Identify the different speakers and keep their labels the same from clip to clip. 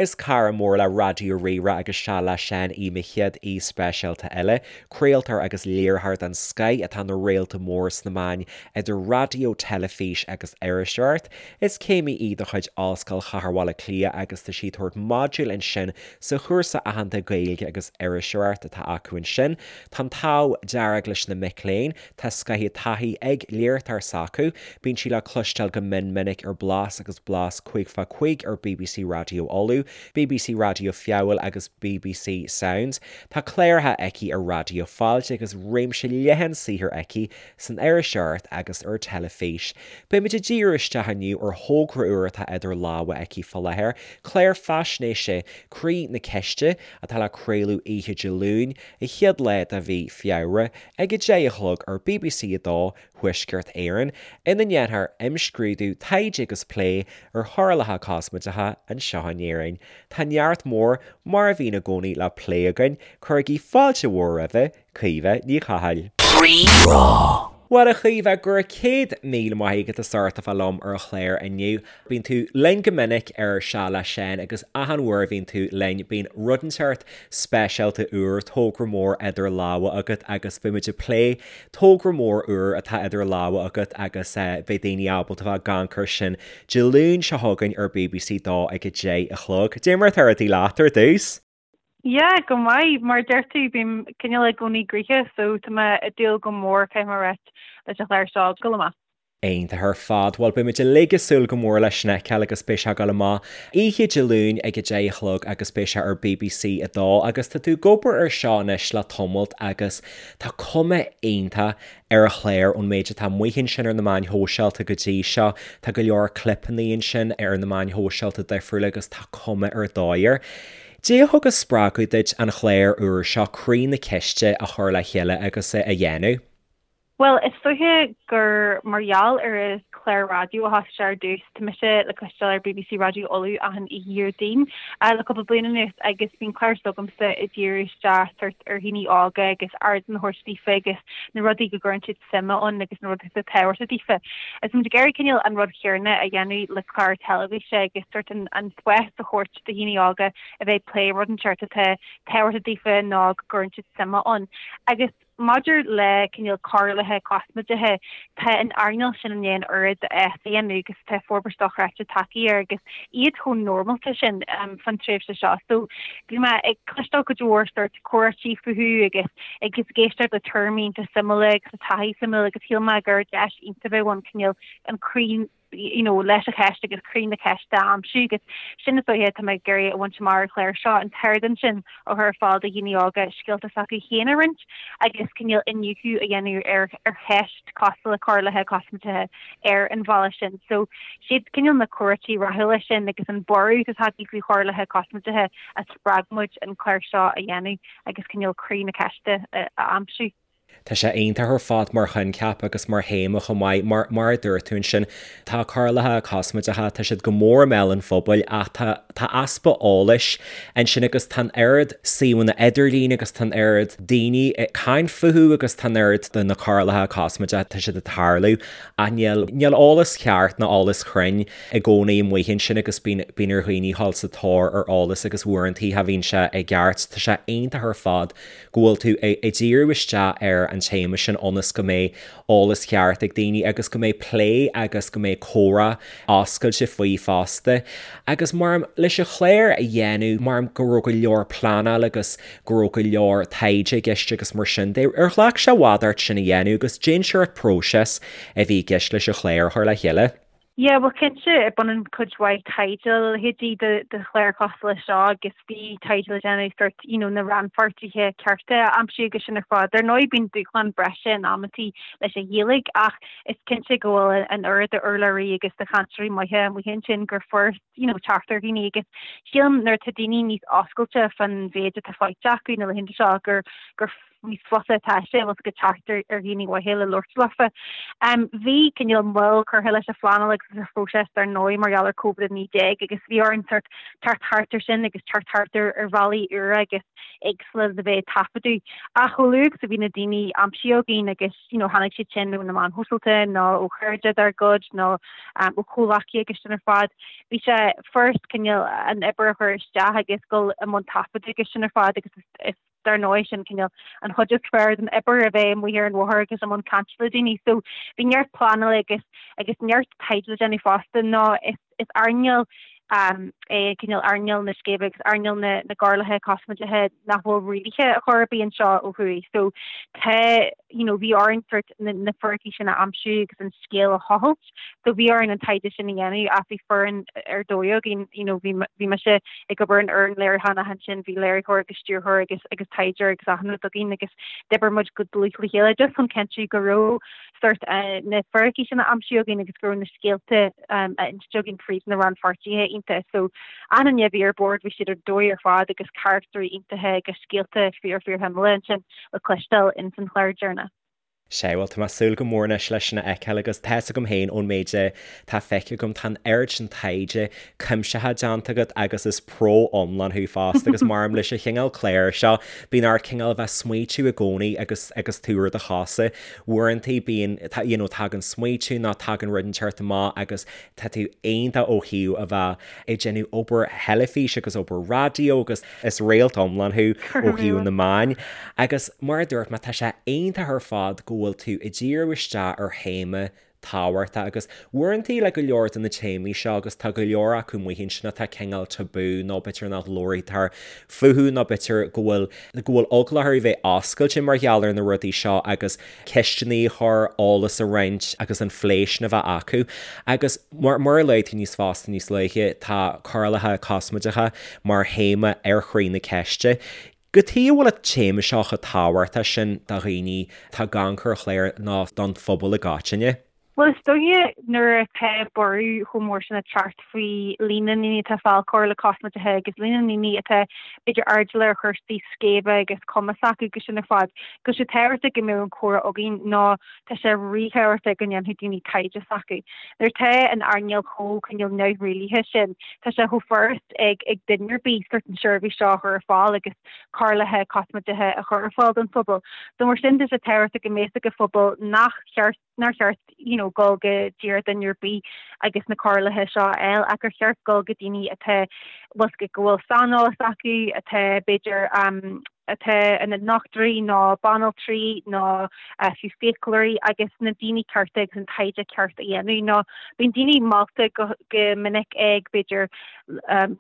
Speaker 1: Is cara mór le Raidió Rí-Rá agus Seal le Seán í mo chéad aoi speisialta eile. Craoltóir agus léiritheoir den scoith atá ina réalta mór sna meáin idir raidió, teilifís agus iriseoireacht. Is céimí í de chuid Ollscoil Chathair Bhaile Átha Cliath agus tá sí ag tabhairt modúil ansin sa chúrsa aitheanta Gaeilge agus Iriseoireacht atá acu ansin. Tá an t-ádh dearg leis na mic léinn. Tá scaitheamh taithí ag léiritheoir s'acu. Bíonn sí le cloisteáil go mion minic ar Blas agus Blas 5 fá 5 ar bbc Raidió Uladh, bbc Raidió Feabhail agus bbc Sounds. Tá cláracha aici ar Raidió Fáilte agus réimse leathan saothair aici san iriseoireacht agus ar teilifís. Beimid ag díriú isteach inniu ar thogra úr atá idir lámha aici fá láthair, clár faisnéise Croí na Ceiste, atá le craoladh oíche Dé Luain, an chéad lá de mhí Feabhra, ag 10 a chlog ar bbc 2 Thuaisceart Éireann, ina ndéanfar imscrúdú, taighde agus plé ar choirleacha cosmaideacha anseo in Éirinn. Tá neart mór, mar a bhíonn i gcónaí, le plé againn, cuirigí fáilte mhór roimhe, Caoimhe Ní Chathail. Rí-Rá. Bhuel a Chaoimhe, go raibh 100,000 maith agat as ucht a bheith liom ar an chlár inniu. Bíonn tú linn go minic ar Seal le Seán agus achan uair a bhíonn tú linn bíonn rud inteacht speisialta úr, togra mór idir lámha agat agus beidh muid ag plé togra mór úr atá idir lámha agat agus beidh daoine ábalta bheith ag amharc air sin Dé Luain seo chugainn ar bbc 2 ag 10 a chlog. Dé mar atá rudaí leat ar dtús?
Speaker 2: Yeah, go maith. Mar a deir tú, bím cineál i gcónaí gnoitheach so tá mé ag dúil go mór, caithfidh mé a ráit, leis an chlár seo ag dul amach.
Speaker 1: Iontach ar fad. Bhuel, beidh muid uilig ag súil go mór leis sin a fheiceáil agus beidh sé ag dul amach oíche Dé Luain ag 10 a chlog agus beidh sé ar bbc 2 agus tá tú ag obair ar seo anois le tamalt agus tá cuma iontach ar an chlár ón méid atá amuigh ansin ar na meáin shóisialta go dtí seo. Tá go leor clipeanna ansin ar na meáin shóisialta difriúla agus tá cuma ar dóigh air. Dé a thug an spreagadh duit an chlár úr seo, Croí na Ceiste, a chur le chéile agus a dhéanamh?
Speaker 2: Bhuel, is dóiche gur mar gheall ar an chlár raidió a thosaigh sé ar dtús. Tá mise le cloisteáil ar bbc Raidió Uladh achan oíche Dhéardaoin le cúpla bliain anuas agus bíonn clár s'agamsa ag díriú isteach sórt ar dhaoine óga agus ardán a thabhairt daofa agus na rudaí go gcuireann siad suim ann agus na rudaí atá tábhachtach daofa. Is muid ag iarraidh cineál an rud chéanna a dhéanamh le clár teilifíse agus sórt an spás a thabhairt do dhaoine óga a bheith ag plé rud inteacht atá tábhachtach daofa nó go gcuireann siad suim ann. Agus Maidir le cineál coirleacha cosmaideacha, tá an earnáil sin i ndiaidh an oiread fás a dhéanamh agus tá forbairt dochreidte tagtha air agus iad chomh normálta sin fán tréimhse seo. So bhí mé ag cloisteáil cuid mhór sórt comhráití fúthu agus agus ag éisteacht le tuairimí iontach suimiúla agus le taithí suimiúil agus shíl mé gur deis iontach a bheadh ann cineál an croí you know, leis an cheist agus croí na ceiste a aimsiú agus sin is dóiche atá mé ag iarraidh a bhaint amach ar an chlár seo, an t-ardán sin a chur ar fáil do dhaoine óga scéalta s'acu féin a roinnt agus cineál iniúchadh a dhéanamh ar ar cheist cosúil le coirleacha cosmaideacha ar an bhealach sin. So siad cineál na comhráití rathúla sin agus an borradh atá tagtha faoi choirleacha cosmaideacha a spreag muid an clár seo a dhéanamh agus cineál croí na ceiste a aimsiú.
Speaker 1: Tá sé iontach ar fad mar choincheap agus mar théama chomh maith. Mar, mar a dúirt tú ansin, tá coirleacha cosmaideacha, tá siad go mór i mbéal an phobail ach tá, tá easpa eolais ansin agus tá an oiread suíomhanna idirlín agus tá an oiread daoine ag caint fúthu agus tá an oiread de na coirleacha cosmaideacha, tá siad ag tarlú ach níl, níl eolas ceart ná eolas cruinn i gcónaí amuigh ansin agus bíonn, bíonn ar dhaoine dhul sa tóir ar eolas agus uaireantaí cha bhíonn sé i gceart. Tá sé iontach ar fad go bhfuil tú ag díriú isteach ar an téama sin ionas go mbeidh eolas ceart ag daoine agus go mbeidh plé agus go mbeidh comhrá oscailte faoi fosta. Agus mar leis an chlár a dhéanamh, mar go raibh go leor pleanáil agus go raibh go leor taighde i gceist agus mar sin de, ar ghlac sé i bhfad ort sin a dhéanamh agus cén sórt próiseas a bhí i gceist leis an chlár a chur le chéile?
Speaker 2: Yeah, bhuel cinnte, baineann cuid mhaith taighde le leithéidí de de chlár cosúil leis seo agus bhí taighde le déanamh sórt you know na rannpháirtithe cearta a aimsiú agus sin ar fad. Ar ndóigh bíonn dúshlán breise in amantaí leis an Ghaeilge ach is cinnte go bhfuil an oiread de urlabhraí agus de chainteoirí maithe amuigh ansin gur furast you know teacht ar dhaoine agus sílim nuair atá daoine níos oscailte fán mhéid atá faighte acu na laethanta seo gur gur. níos fusa atá sé bhfuil 's agat teacht ar ar dhaoine mhaithe le labhairt leofa. Bhí cineál moill curtha leis an phleanáil agus leis an phróiseas dar ndóigh mar gheall ar Covid-19 agus bhí orainn sort teacht thart ar sin agus teacht thart ar ar bhealaí úra agus éagsúla le bheith ag taifeadadh. Ach chomh luath agus a bhí na daoine aimsithe againn agus you know tháinig siad sin ó na meáin shóisialta nó ó chairde dár gcuid nó ó chomhghleacaithe agus sin ar fad, bhí sé furast cineál an obair a chur isteach agus dul i mbun taifeadadh agus sin ar fad agus is dar ndóigh sin cineál an chuid is fearr den obair a bheith amuigh ar an bhóthar agus i mbun cainte le daoine. So bhí neart pleanála agus agus neart taighde le déanamh fosta nó is is earnáil é cineál earnáil na scéimhe agus earnáil na na gcóireálacha cosmaideacha nach bhfuil rialaithe ar chor ar bith anseo ó thuaidh. So tá you know bhí orainn sort na na fíricí sin a aimsiú agus an scéal a thochailt. So bhí orainn an taighde sin a dhéanamh ach bhí foireann ar dóigh againn, you know, bhí bhí mise ag obair an fhoireann léiriúcháin ach ansin bhí léiritheoir agus stiúrthóir agus agus taighdeoir agus achan rud againn agus d'oibir muid go dlúth le chéile just chun cinntiú go raibh sort na fíricí sin á aimsiú againn agus go raibh na scéalta á inste againn fríd na rannpháirtithe iontacha. So achan duine a bhí ar bord bhí siad ar dóigh ar fad agus carachtarí iontacha agus scéalta fíor fíor shuimiúla ansin le cloisteáil ins an chlár deireanach.
Speaker 1: Sea, bhuel, tá mé ag súil go mór anois leis sin a fheiceáil agus tá fhios agam féin ón méid atá feicthe agam, tá an oiread sin taighde cuimsitheach déanta agat agus is pro iomlán thú fosta agus maram leis an chineál cláir seo, bíonn ort cineál a bheith ag smaoitiú i gcónaí agus agus tú ar do chosa. Uaireantaí bíonn, you know, tagann smaoitiú nó tagann rud inteacht amach agus tá tú iontach ó thaobh a bheith ag déanamh obair theilifíse agus obair raidió agus Is réalt iomlán thú ó thaobh na meáin. Agus mar a dúirt mé, tá sé iontach ar fad go bhfuil tú ag díriú isteach ar théama tábhachtach agus uaireantaí le go leor de na téamaí seo agus tá go leor acu amuigh ansin atá cineál tabú nó b'fhéidir nach labhraítear fúthu nó b'fhéidir go bhfuil go bhfuil eagla orthu bheith oscailte mar gheall ar na rudaí seo agus ceisteanna a chur, eolas a roinnt agus an phlé sin a bheith acu. Agus mar a luaigh tú níos fosta níos luaithe, tá cóireálacha cosmaideacha mar théama ar Chroí na Ceiste. Cad chuige a bhfuil an téama seo chomh tábhachtach sin do dhaoine atá ag amharc ar an chlár nó don phobal i gcoitinne?
Speaker 2: Bhuel, is dóiche nuair atá borradh chomh mór sin ag teacht faoi líon na ndaoine atá ag fáil cóireála cosmaideacha agus líon na ndaoine atá b'fhéidir airdeallach ar chúrsaí scéimhe agus cuma s'acu agus sin ar fad, go bhfuil sé tábhachtach go mbeadh an comhrá againn nó tá sé ríthábhachtach go ndéanfadh daoine taighde s'acu. Nuair atá an earnáil chomh cineál neamhrialaithe sin, tá sé chomh furast ag ag duine ar bith sort an seirbhís seo a chur ar fáil agus cóireálacha cosmaideacha a chur ar fáil don phobal. So mar sin tá sé tábhachtach go mbeadh fhios ag an phobal nach cheart nár cheart you know dul go díreach duine ar bith agus na cóireálacha seo a fháil ach gur cheart dul go daoine atá bhfuil go bhfuil saineolas acu atá b'fhéidir um, atá ina ndochtúirí nó banaltraí nó uh, fiú fiaclóirí agus na daoine cearta agus an taighde ceart a dhéanamh nó bíonn daoine meallta go, go minic ag b'fhéidir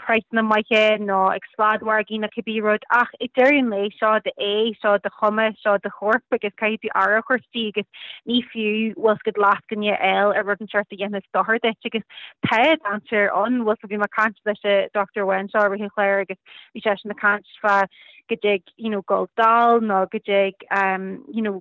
Speaker 2: praghsanna maithe nó ag sladmhargaí nó cibé rud ach ag deireadh an lae seo d'aghaidh, seo do chuma, seo do chorp agus caithfidh tú aire a thabhairt di agus ní fiú bhfuil 's agat lascaine a fháil ar rud inteacht a dhéanfas dochar duit agus tá dainséar ann bhfuil 's bhí mé ag caint leis an dochtúir amháin seo i rith an chláir agus bhí seisean ag caint fá go dtig you know dul dall nó go dtig um you know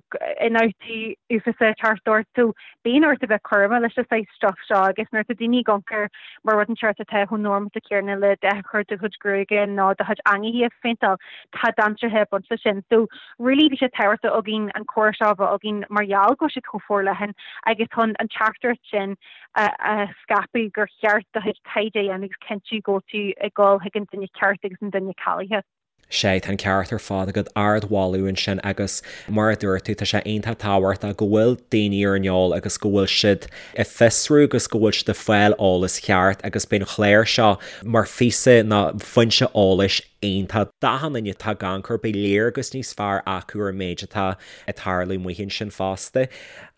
Speaker 2: ionfhabhtú uafásach teacht ort so bíonn ort a bheith cúramach leis an saghas stuff seo agus nuair atá daoine ag amharc air mar rud inteacht atá chomh normálta céanna le dath a chur do chuid gruaige nó do chuid eangaí a phéinteáil tá dainséartha ag baint leis sin so really bhí sé tábhachtach againn an comhrá seo a bheith againn mar gheall go bhfuil siad chomh forleathan agus chun an teachtaireacht sin a a scaipeadh gur cheart do chuid taighde a dhéanamh agus cinntiú go bhfuil tú ag dul chuig an duine ceart agus an duine cáilithe.
Speaker 1: Sea, tá an ceart ar fad agat, ardmholadh ansin agus mar a dúirt tú, tá sé iontach tábhachtach go bhfuil daoine ar an eol agus go bhfuil siad ag fiosrú agus go bhfuil siad ag fáil eolas cheart agus beidh an chlár seo mar phíosa nó foinse eolais iontach d'achan duine atá ag amharc air, beidh léargas níos fearr acu ar an méid atá ag tarlú amuigh ansin fosta.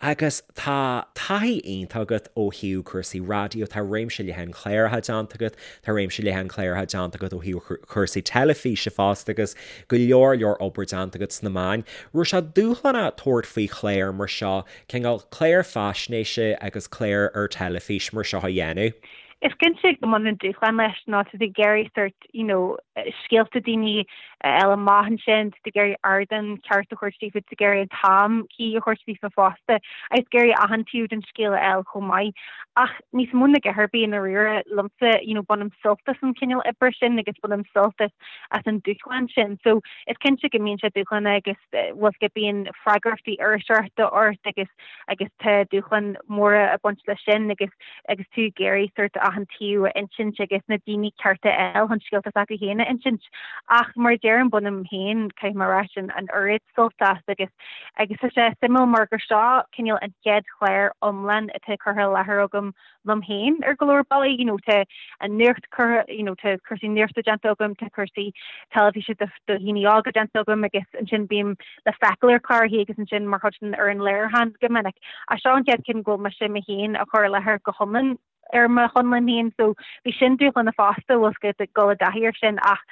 Speaker 1: Agus tá taithí iontach agat ó thaobh cúrsaí raidió, tá réimse leathan cláracha déanta agat, tá réimse leathan cláracha déanta agat ó thaobh cúrsaí teilifíse fosta agus go leor leor obair déanta agat sna meáin. Raibh sé dúshlánach tabhairt faoi chlár mar seo, cineál clár faisnéise agus clár ar teilifís mar seo a dhéanamh?
Speaker 2: Is cinnte go mbaineann dúshlán leis nó tá tú ag iarraidh sort you know scéalta daoine. a fháil amach ansin, tá tú ag iarraidh ardán ceart a thabhairt daofa, tá tú ag iarraidh an t-am cuí a thabhairt daofa fosta agus ag iarraidh achan taobh den scéal a fháil chomh maith. Ach níos mó ná a dhath ar bith i ndáiríre liomsa, you know, bainim sult as an chineál oibre sin agus bainim sult as as an dúshlán sin. So is cinnte go mbíonn sé dúshlánach agus bhfuil go bíonn freagrachtaí iriseoireachta ort agus agus tá dúshláin mhóra ag baint leis sin agus agus tú ag iarraidh sort achan taobh a insint agus na daoine cearta a fháil chun scéalta s'acu féin a insint. Ach mar a deirim bainim féin, caithfidh mé a rá, sin an oiread sult as agus agus tá sé suimiúil mar gur seo cineál an chéad chlár iomlán atá curtha i láthair agam liom féin ar go leor bealaí, you know tá an nuacht curtha, you know tá cúrsaí nuachta déanta agam, tá cúrsaí teilifíse do dhaoine óga déanta agam agus ansin bím le feiceáil ar chláracha agus ansin mar chuid den fhoireann léiriúcháin go minic. Ach seo an chéad cinn go bhfuil mise mé féin á chur i láthair go hiomlán ar mo chonlán féin so bhí sin dúshlánach fosta bhfuil 's agat ag dul i dtaithí air sin ach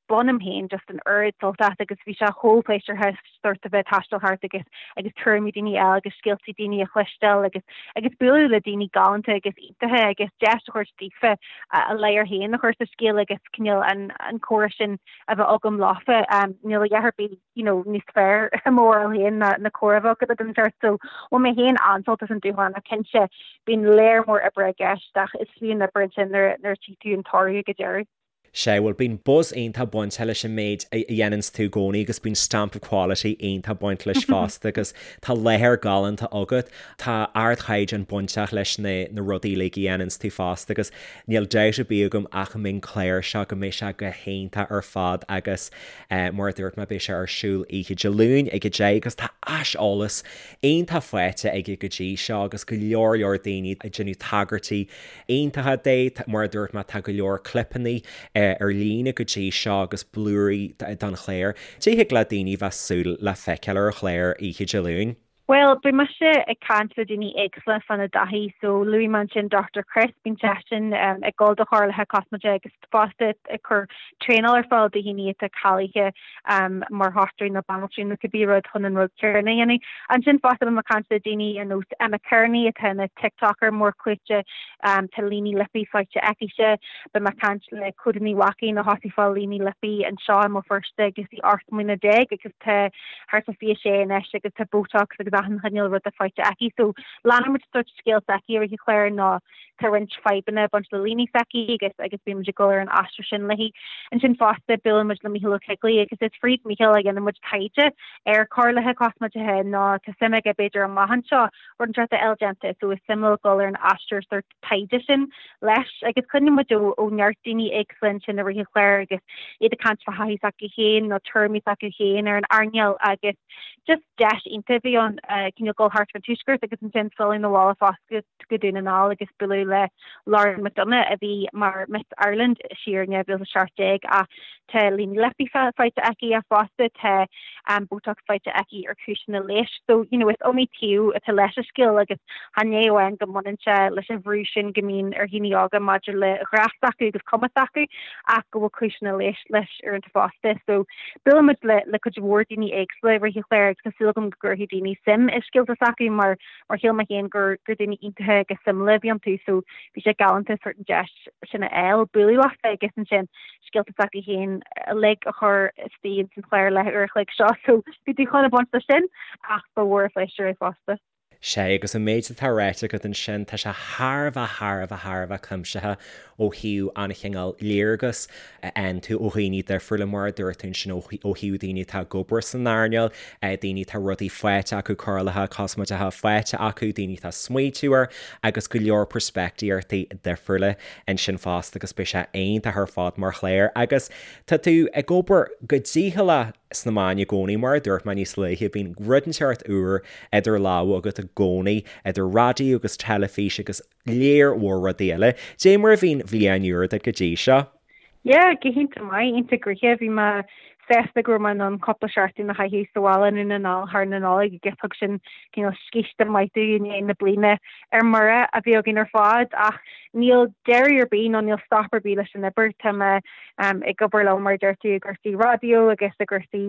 Speaker 2: bainim féin just an oiread sult as agus bhí sé chomh pléisiúrtha sort a bheith ag taisteal thart agus agus tuairimí daoine a fháil agus scéaltaí daoine a chloisteáil agus agus bualadh le daoine galánta agus iontacha agus deis a thabhairt daofa a ladhar féin a chur sa scéal agus cineál an an comhrá sin a bheith agam leofa. Níl a dhath ar bith you know níos fearr i mo bharúil féin ná ná comhrá a bheith agat le duine inteacht so bhain mé féin an-sult as an dúshlán ach cinnte bíonn léar mór oibre i gceist ach is fiú an obair ansin nuair nuair a tchí tú an toradh ag an deireadh.
Speaker 1: Sea, bhuel, bíonn buzz iontach bainte leis an méid a dhéananns tú i gcónaí agus bíonn stamp of quality iontach baint leis fosta agus tá láthair galánta agat. Tá ardchaighdeán bainteach leis na na rudaí uilig a dhéananns tú fosta agus níl dabht ar bith agam ach go mbeidh an clár seo, go mbeidh sé go hiontach ar fad agus mar a dúirt mé beidh sé ar siúl oíche Dé Luain ag 10 agus tá aiseolas iontach faighte aige go dtí seo agus go leor leor daoine ag déanamh tagairtí iontacha de. Mar a dúirt mé, tá go leor clipeanna ar líne go dtí seo agus blúirí don chlár. Cad é a thig le daoine bheith súil le feiceáil ar an chlár oíche Dé Luain.
Speaker 2: Bhuel, beidh mise ag caint le daoine éagsúla fána dtaithí. So, luaigh mé ansin Dr Chris, bíonn seisean ag dul do chóireálacha cosmaideacha agus fosta ag cur traenáil ar fáil do dhaoine atá cáilithe mar dhochtúirí nó banaltraí nó cibé rud chun an rud céanna a dhéanamh. Ansin fosta beidh mé ag caint le daoine ar nós Emma Kearney atá ina TikToker mór clúite, tá líní lipí faighte aicise. Beidh mé ag caint le Clodagh Ní Mhaicín a thosaigh ag fáil líní lipí anseo i mBéal Feirste agus í 18 mbliana agus tá thart fá 26 anois agus tá Botox agus achan chineál ruda faighte aici. So leanfaidh muid sort scéal s'aici i rith an chláir nó Tá roinnt fadhbanna ag baint le líní s'aici agus agus bíonn muid ag dul ar an aistear sin léi. Ansin fosta buaileann muid le Mícheál Ó Coigligh agus is fríd Mícheál a dhéanann muid taighde ar chóireálacha cosmaideacha nó tá suim aige b'fhéidir amach anseo rud inteacht a fháil déanta so is suimiúil dul ar an aistear sort taighde sin leis agus cluineann muid ó ó neart daoine éagsúla ansin i rith an chláir agus iad ag caint fá thaithí s'acu féin nó tuairimí s'acu féin ar an earnáil agus just deis iontach a bhí ann cineál dul thart ar an tuaisceart agus ansin filleadh na bhaile fosta go Dún na nGall agus bualadh le Lauren McDonagh a bhí mar Miss Ireland siar in 2017 ach tá líní lipí faighte aici ach fosta tá Botox faighte aici ar chúiseanna leighis. So, you know, is iomaí taobh atá leis an scéal agus chan é amháin go mbaineann sé leis an bhrú sin go mbíonn ar dhaoine óga maidir le grá s'acu agus cuma s'acu ach go bhfuil cúiseanna leighis leis uaireanta fosta. So, buaileann muid le le cuid mhór daoine éagsúla i rith an chláir agus tá súil agam go gcuirfidh daoine suim i scéalta s'acu mar mar shíl mé féin gur gur daoine iontacha agus suimiúla a bhí iontu so bhí sé galánta sort an deis sin a fháil bualadh leofa agus ansin scéalta s'acu féin uilig a chur istigh ins an chlár leathuair a chloig seo so bhí dúshlán ag baint leis sin ach ba mhór an phléisiúr é fosta.
Speaker 1: Sea, agus an méid atá ráite agat ansin, tá sé thar a bheith, thar a bheith, thar a bheith cuimsitheach ó thaobh an chineál léargas a fhaigheann tú ó dhaoine difriúla, mar a dúirt tú ansin, ó thaobh daoine atá ag obair san earnáil, daoine atá rudaí faighte acu, cóireálacha cosmaideacha faighte acu, daoine atá ag smaoitiú air agus go leor peirspictíochtaí difriúla ansin fosta agus beidh sé iontach ar fad mar chlár. Agus tá tú ag obair go dícheallach sna meáin i gcónaí, mar a dúirt mé níos luaithe, bíonn rud inteacht úr idir lámha agat i gcónaí, idir raidió agus teilifís agus léar mhór rudaí eile. Dé mar a bhí an bhliain úr duit go dtí seo?
Speaker 2: Yeah, go hiontach maith, iontach gnoitheach. Bhí mé sásta go raibh mé in ann cúpla seachtain a chaitheamh sa bhaile i nDún na nGall thar na Nollag agus thug sin cineál scíste maith domh i ndiaidh na bliana ar mire a bhí againn ar fad ach níl deireadh ar bith nó níl stop ar bith leis an obair. Tá mé ag obair liom mar a deir tú i gcúrsaí raidió agus i gcúrsaí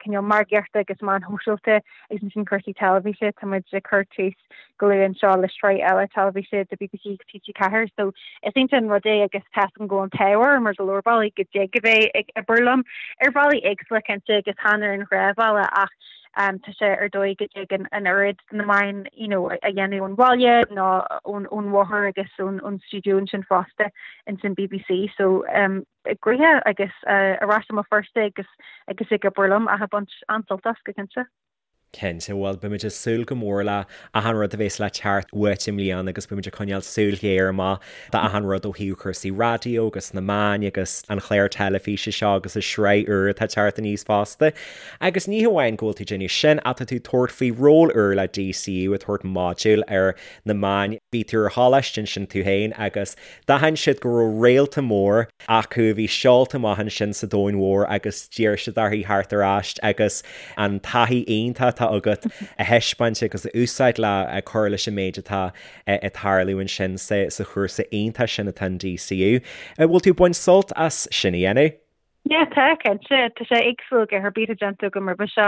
Speaker 2: cineál margaíochta agus meáin shóisialta agus ansin cúrsaí teilifíse, tá muid ag cur tús go luath anseo le sraith eile teilifíse do bbc agus TG4 so is iontach an rud é agus tá a fhios agam go bhfuil an t-ádh orm ar go leor bealaí go dtig a bheith ag obair liom ar bhealach. bealaí éagsúla cinnte agus chan ar an ghnáthbhealach ach tá sé ar dóigh go dtig an oiread de na meáin you know a dhéanamh ón bhaile nó ón ón bhóthar agus ón ón stiúideo ansin fosta ins an BBC so gnoitheach agus ar ais i mBéal Feirste agus agus ag obair liom ach ag baint an-sult as go cinnte.
Speaker 1: Cinnte, bhuel beimid ag súil go mór le achan rud a bhéas le teacht uait i mbliana agus beimid ag coinneáil súil ghéar amach d'achan rud ó thaobh cúrsaí raidió agus na meáin agus an chlár teilifíse seo agus an sraith úr atá ag teacht aníos fosta. Agus ní hamháin go bhfuil tú ag déanamh sin ach tá tú ag tabhairt faoi ról úr le DCU ag tabhairt modúl ar na meáin. Bhí tú ar choláiste ansin tú féin agus D'aithin siad go raibh réalta mór acu a bhí seolta amach ansin sa domhan mhór agus d'iarr siad orthu theacht ar ais agus an taithí iontach atá agat a thaispeáint agus a úsáid le cur leis an méid atá ag tarlú ansin sa chúrsa iontach sin atá in DCU. An bhfuil tú ag baint sult as sin a dhéanamh?
Speaker 2: Yeah, tá, cinnte. Tá sé éagsúil go ar bith atá déanta agam roimhe seo.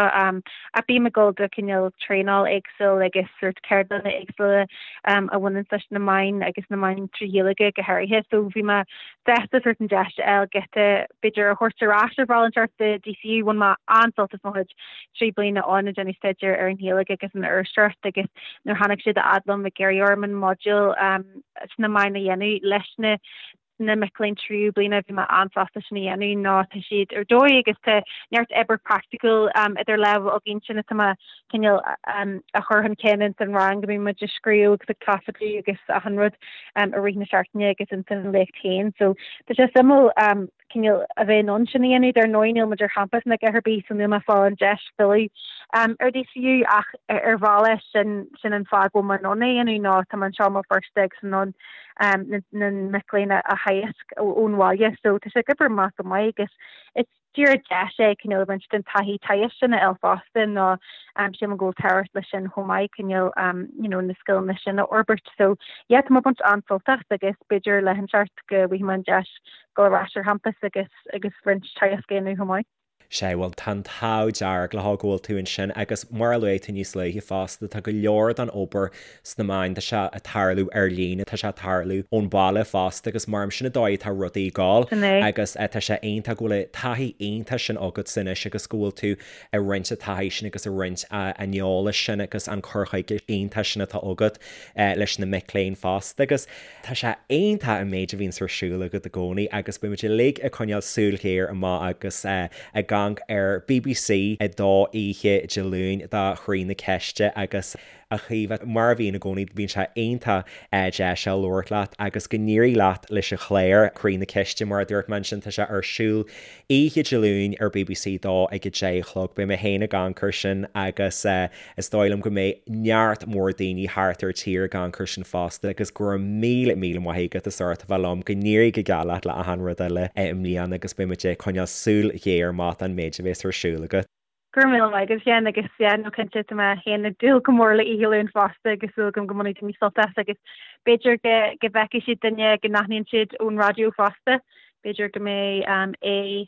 Speaker 2: Ach bím ag dul do cineál traenáil éagsúil agus sórt ceardlanna éagsúla a bhaineann leis na meáin agus na meáin trí Ghaeilge go háirithe. So bhí mé sásta sórt an deis a fháil giota b'fhéidir a thabhairt ar ais ar bhealach inteacht do DCU. Bhain mé an-sult as mo chuid 3 bliana ann ag déanamh staidéar ar an Ghaeilge agus an iriseoireacht agus nuair a tháinig siad a fhad liom ag iarraidh orm an modúl sna meáin a dhéanamh leis na na mic léinn tríú bliana, bhí mé an-sásta sin a dhéanamh nó tá siad ar dóigh agus tá neart obair praiticiúil idir lámha againn sin atá mé cineál a chur chun cinn ins an rang go mbíonn muid ag scríobh agus ag taifeadadh agus achan rud i rith na seachtaine agus ins an léacht féin. So tá sé suimiúil cineál a bheith in ann sin a dhéanamh. Dar ndóigh níl muid ar champas ná a dhath ar bith so níl mé ag fáil an deis filleadh ar DCU ach ar bhealach sin sin an fáth go bhfuil mé in ann é a dhéanamh nó tá mé anseo i mBéal Feirste agus in ann na mic léinn a theagasc ón bhaile. So tá sé ag obair amach go maith agus is díreach deis é cineál roinnt den taithí teagaisc sin a fháil fosta nó sílim go bhfuil tábhacht leis sin chomh maith cineál you know na scileanna sin a fhorbairt. So yeah tá mé ag baint an-sult as agus b'fhéidir lá inteacht go bhfaighidh mé an deis dul ar ais ar champas agus agus roinnt teagasc a dhéanamh chomh maith.
Speaker 1: Sea, bhuel, tá an t-ádh dearg leo go bhfuil tú ansin agus mar a luaigh tú níos luaithe fosta, tá go leor den obair sna meáin, tá sé ag tarlú ar líne, tá sé ag tarlú ón bhaile fosta agus mar sin an dóigh atá rudaí ag gabháil
Speaker 2: Sin é.
Speaker 1: agus tá sé iontach go bhfuil an taithí iontach sin agatsa anois agus go bhfuil tú ag roinnt an taithí sin agus ag roinnt an eolais sin agus an cur chuige iontach sin atá agat leis na mic léinn fosta agus Tá sé iontach an méid a bhíonns ar siúl agat i gcónaí agus beidh muid uilig ag coinneáil súil ghéar amach agus ag amharc ar BBC 2 oíche Dé Luain do Chroí na Ceiste agus a Chaoimhe, mar a bhíonn i gcónaí bíonn sé iontach deas a labhairt leat agus go n-éirí leat leis an chlár Croí na Ceiste mar a dúirt mé ansin tá sé ar siúl oíche Dé Luain ar BBC 2 ag 10 a chlog. Beidh mé féin ag amharc air sin agus Is dóigh liom go mbeidh neart mór daoine thart ar tír ag amharc air sin fosta agus go raibh míle míle maith agat as ucht a bheith liom, go n-éirí go geal leat le achan rud eile i mbliana agus beidh muid ag coinneáil súil ghéar amach don méid a bhéas ar siúl agat.
Speaker 2: Go raibh míle maith agat a Sheáin agus yeah no cinnte tá mé féin ag dúil go mór le Oíche Luain fosta agus súil agam go mbainfidh daoine sult as agus b'fhéidir go go bhfeicfidh siad duine go n-aithníonn siad ón raidió fosta, b'fhéidir go mbeidh é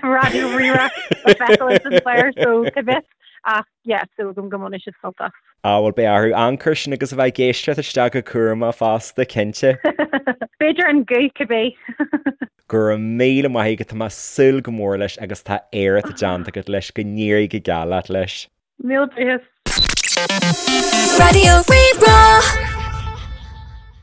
Speaker 2: Raidió Rí-Rá le feiceáil ins an chlár so cá bhfios ach yeah súil agam go mbainfidh siad sult as.
Speaker 1: Ah bhuel beidh orthu amharc air sin agus a bheith ag éisteacht isteach go cúramach fosta, cinnte.
Speaker 2: B'fhéidir an guth cibé.
Speaker 1: Go raibh míle maith agat, tá mé ag súil go mór leis agus tá éacht déanta agat leis, go n-éirí go geal leat leis.
Speaker 2: Míle buíochas.
Speaker 3: Raidió Rí-Rá.